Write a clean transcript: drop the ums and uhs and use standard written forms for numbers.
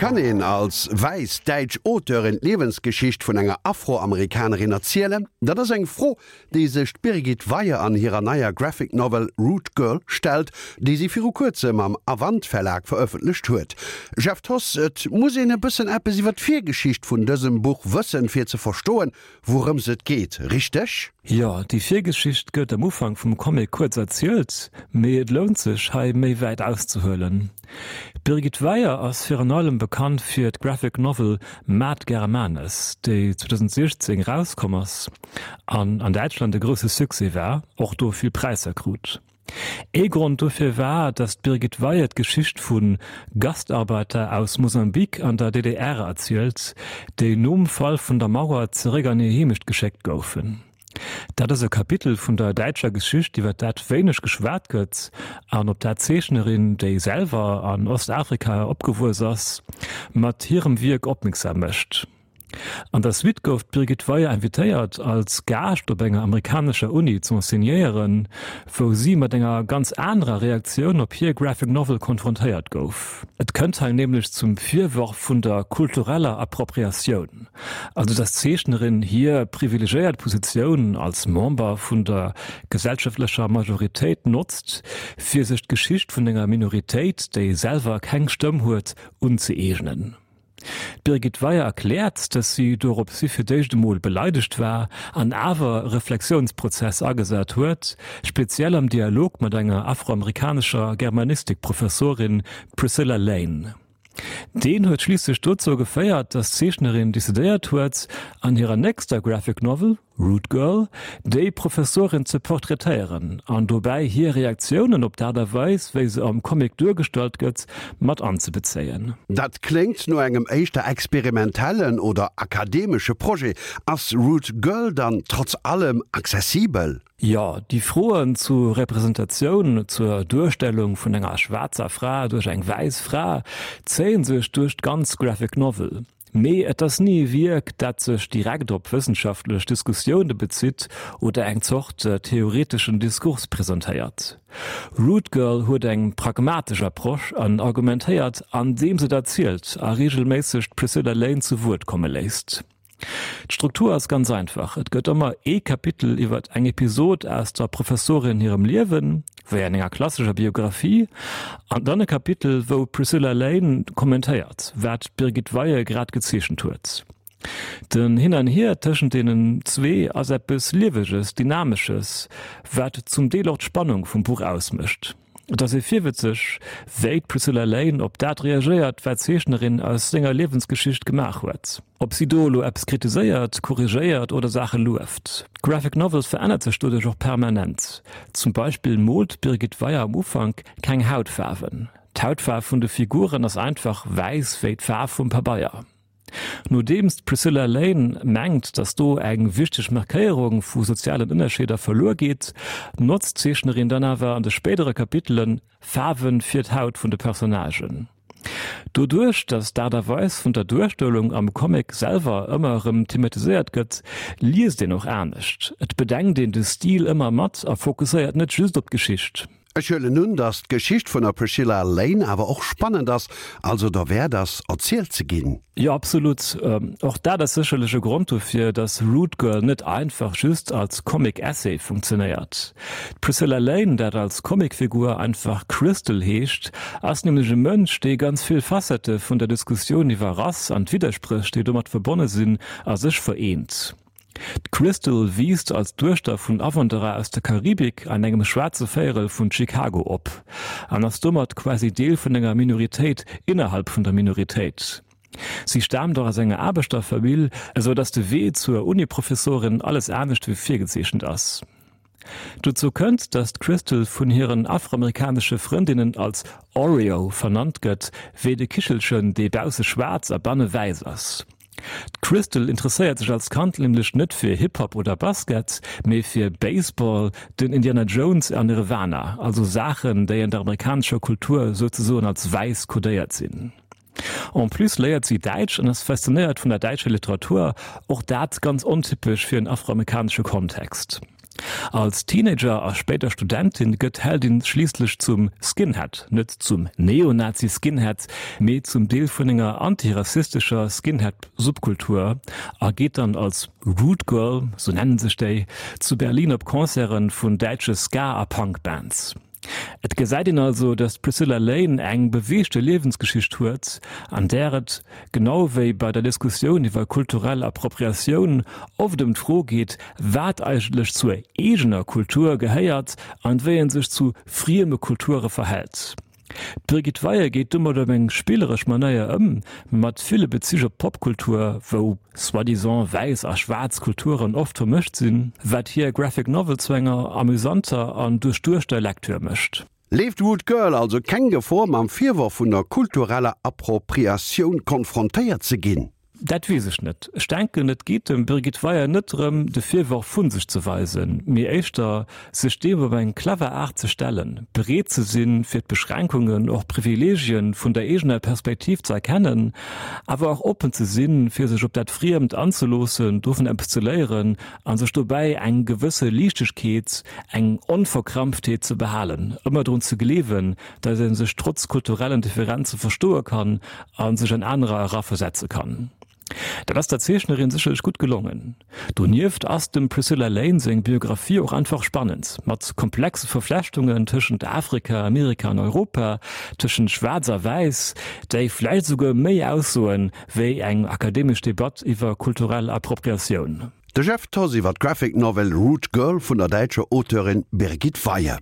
Kann een als wäiss däitsch Auteurin d'Liewensgeschicht vun enger Afroamerikanerin erzielen? Dat ass eng Fro, déi sech d'Birgit Weyer an hirer neier Graphic Novel Root Girl stellt, déi si viru kuerzem am Avant Verlag verëffentlecht huet. Jeff Thoss, Et muss een e bëssen eppes iwwer d'Virgeschicht vun dësem Buch wëssen, fir ze verstoen, wourëms et geet, richteg? Jo, déi Virgeschicht gëtt am Ufank vum Comic kuerz erzielt, mee et lount sech, hei méi wäit auszehuelen. D'Birgit Weyer ass virun allem bekannt fir d'Graphic Novel Mad Germanes, déi 2016 erauskomm ass an an Däitschland e grousse Succès war, och do vill Präisser krut. Ee Grond dofir war, datt d'Birgit Weyer d'Geschicht vu Gastarbeiter aus Mosambik an der DDR erzielt, déi nom Fall vun der Mauer zeréck an hir Heemecht geschéckt goufen. Dat ass e Kapitel vun der däitscher Geschicht, iwwer dat wéineg geschwat gëtt an op dat d'Zeechnerin, déi selwer an Ostafrika opgewuess ass, mat hirem Wierk opmierksam mécht. An der Suite gouf d'Birgit Weyer invitéiert, als Gaascht op enger amerikanescher Uni z'enseignéieren, wou si mat enger ganz anerer Reaktioun op hir Graphic Novel konfrontéiert gouf. Et kënnt hei nämlech zum Virworf vun der kultureller Appropriatioun. Also dass d'Zeechnerin hir privilegéiert Positioun als Member vun der gesellschaftlecher Majoritéit notzt, fir sech d'Geschicht vun enger Minoritéit, déi selwer keng Stëmm huet, unzëeegnen. D'Birgit Weyer erkläert, dass si doropshi fir d'éischt emol beleidegt war an awer e Reflexiounsprozess agesat huet, speziell am Dialog mat enger afroamerikanescher Germanistik-Professorin, d'Priscilla Lane. Deen huet schliisslech dozou geféiert, datt d'Zeechnerin decidéiert huet, an hirer nächster Graphic Novel, Root Girl, déi Professorin ze portraitéieren an dobäi hir Reaktiounen op d'Aart a Weis, wéi se am Comic duergestallt gëtt, mat anzebezéien. Dat kléngt no engem éischter experimentellen oder akademesche Projet. Ass Root Girl dann trotz allem accessibel? Jo, déi Froen zu Representatioun, zur Duerstellung vun enger schwaarzer Fra duerch eng wäiss Fra, zéien sech duerch d'ganz Graphic Novel. Mee et ass ni e Wierk, dat sech direkt op wëssenschaftlech Diskussioune bezitt oder eng Zort theoreteschen Diskurs presentéiert. Rude Girl huet eng pragmatesch Approche an argumentéiert, andeems et erzielt a reegelméisseg d'Priscilla Lane zu Wuert komme léisst. D'Struktur ass ganz einfach, et gëtt ëmmer ee Kapitel iwwer eng Episod aus der Professorin hirem Liewen, wéi an enger klassescher Biographie, an dann e Kapitel, wou d'Priscilla Lane kommentéiert, wat d'Birgit Weie grad gezeechent huet. Den Hin an Hier tëschent deenen zwee ass eppes Lieweges, Dynamesches, wat zum Deel och d'Spannung vum Buch ausmécht. Et ass ee virwëtzeg, wéi d'Priscilla Lane op dat reagéiert, wat d'Zeechnerin aus senger Liewensgeschicht gemaach huet. Ob si do elo eppes kritiséiert, korrigéiert oder Saache lueft. D'Graphic Novel verännert sech doduerch och permanent. Zum Beispill moolt d'Birgit Weyer am Ufank keng Hautfaarwen. D'Hautfaarf vun de Figuren ass einfach wäiss wéi d'Faarf vum Pabeier. Nodeems d'Priscilla Lane mengt, datt do eng wichteg Markéierung vu sozialen Ënnerscheeder verluer geet, notzt d'Zeechnerin dann awer an de spéidere Kapitele Faarwe fir d'Haut vun de Personnagen. Doduerch, datt d'Aart a Weis vun der Duerstellung am Comic selwer ëmmer erëm thematiséiert gëtt, liest een och anescht. Et bedenkt een de Stil ëmmer mat a fokusséiert net just op d'Geschicht. Ech huelen un, dass d'Geschicht vun der Priscilla Lane awer och spannend ass, also derwäert ass, erzielt ze ginn. Jo, absolut. Och dat ass sécherlech e Grond dofir, dass Rude Girl net einfach just als Comic-Essay funktionéiert. D'Priscilla Lane, dat als Comicfigur einfach Crystal heescht, ass nämlech e Mënsch, dee ganz vill Facettë vun der Diskussioun iwwer Rass an d'Widderspréch, déi domat verbonne sinn, a sech vereent. D'Crystal wiisst als Duechter vun Awanderer aus der Karibik an engem schwaarze Véierel vun Chicago op an ass domat quasi Deel vun enger Minoritéit innerhalb vun der Minoritéit. Si staamt och aus enger Aarbechterfamill, esou datt de Wee zur Uniprofessorin alles anescht wéi virgezeechent ass. Dozou kënnt, datt d'Crystal vun hiren afroamerikanesche Frëndinnen als Oreo vernannt gëtt, wéi de Kichelchen, dee bausse schwaarz a banne wäiss ass. D'Crystal interesséiert sech als Kand nämlech net fir Hip-Hop oder Basket, mee fir Baseball, den Indiana Jones an Nirvana, also Saachen, déi an der amerikanescher Kultur souzesoen als wäiss kodéiert sinn. En plus léiert si Däitsch an ass faszinéiert vun der däitscher Literatur, och dat ganz ontypesch fir en afroamerikanesche Kontext. Als Teenager a spéider Studentin gëtt d'Heldin schliisslech zum Skinhead, net zum Neonazi-Skinhead, mee zum Deel vun enger antirassistescher Skinhead-Subkultur a geet dann als Rude Girl, sou nennen sech déi, zu Berlin op Concerte vun däitsche Ska a Punk-Bands. Et gesäit een also, datt d'Priscilla Lane eng beweegte Liewensgeschicht huet, an där et, genau wéi bei der Diskussioun iwwer kulturell Appropriatioun, oft ëm d'Fro geet, wat eigentlech zur eegener Kultur gehéiert an wéi ee sech zu frieme Kulture verhält. D'Brigitte Weyer geet domat op eng spilleresch Manéier ëm, mat ville Bezich op d'Popkultur, wou soi-disant wäiss a schwaarz Kulturen oft vermëscht sinn, wat hir Graphic Novel zu enger amüsanter an duerchduechter Lektür mécht. Leeft Rude Girl also keng Gefor, mam Virworf vun der kultureller Appropriatioun konfrontéiert ze ginn? Dat weess ech net. Ech denken, et geet dem Birgit Weyer net drëm, de Virworf vu sech ze weisen, mee éischter, sech deem op eng clever Aart ze stellen, bereet ze sinn, fir d'Beschränkungen, och d'Privileegien vun der eegener Perspektiv ze erkennen, awer och oppen ze sinn, fir sech op dat Friemt anzeloossen, dovun eppes ze léieren a sech dobäi eng gewësse Liichtegkeet, eng Onverkrampftheet ze behalen, ëmmer drun ze gleewen, datt ee sech trotz kulturellen Differenze verstoe kann a sech an anerer eraversetze kann. Dat ass der Zeechnerin sécherlech gutt gelongen. Donieft ass dem Priscilla Lane seng Biographie och einfach spannend, mat komplexe Verflechtungen tëschent Afrika, Amerika an Europa, tëschent Schwaarz a Wäiss, déi vläicht esouguer méi aussoen, wéi eng akademesch Debatt iwwer kulturell Appropriatioun. De Jeff Thoss iwwer d'Graphic Novel Rude Girl vun der däitscher Auteurin Birgit Weyhe.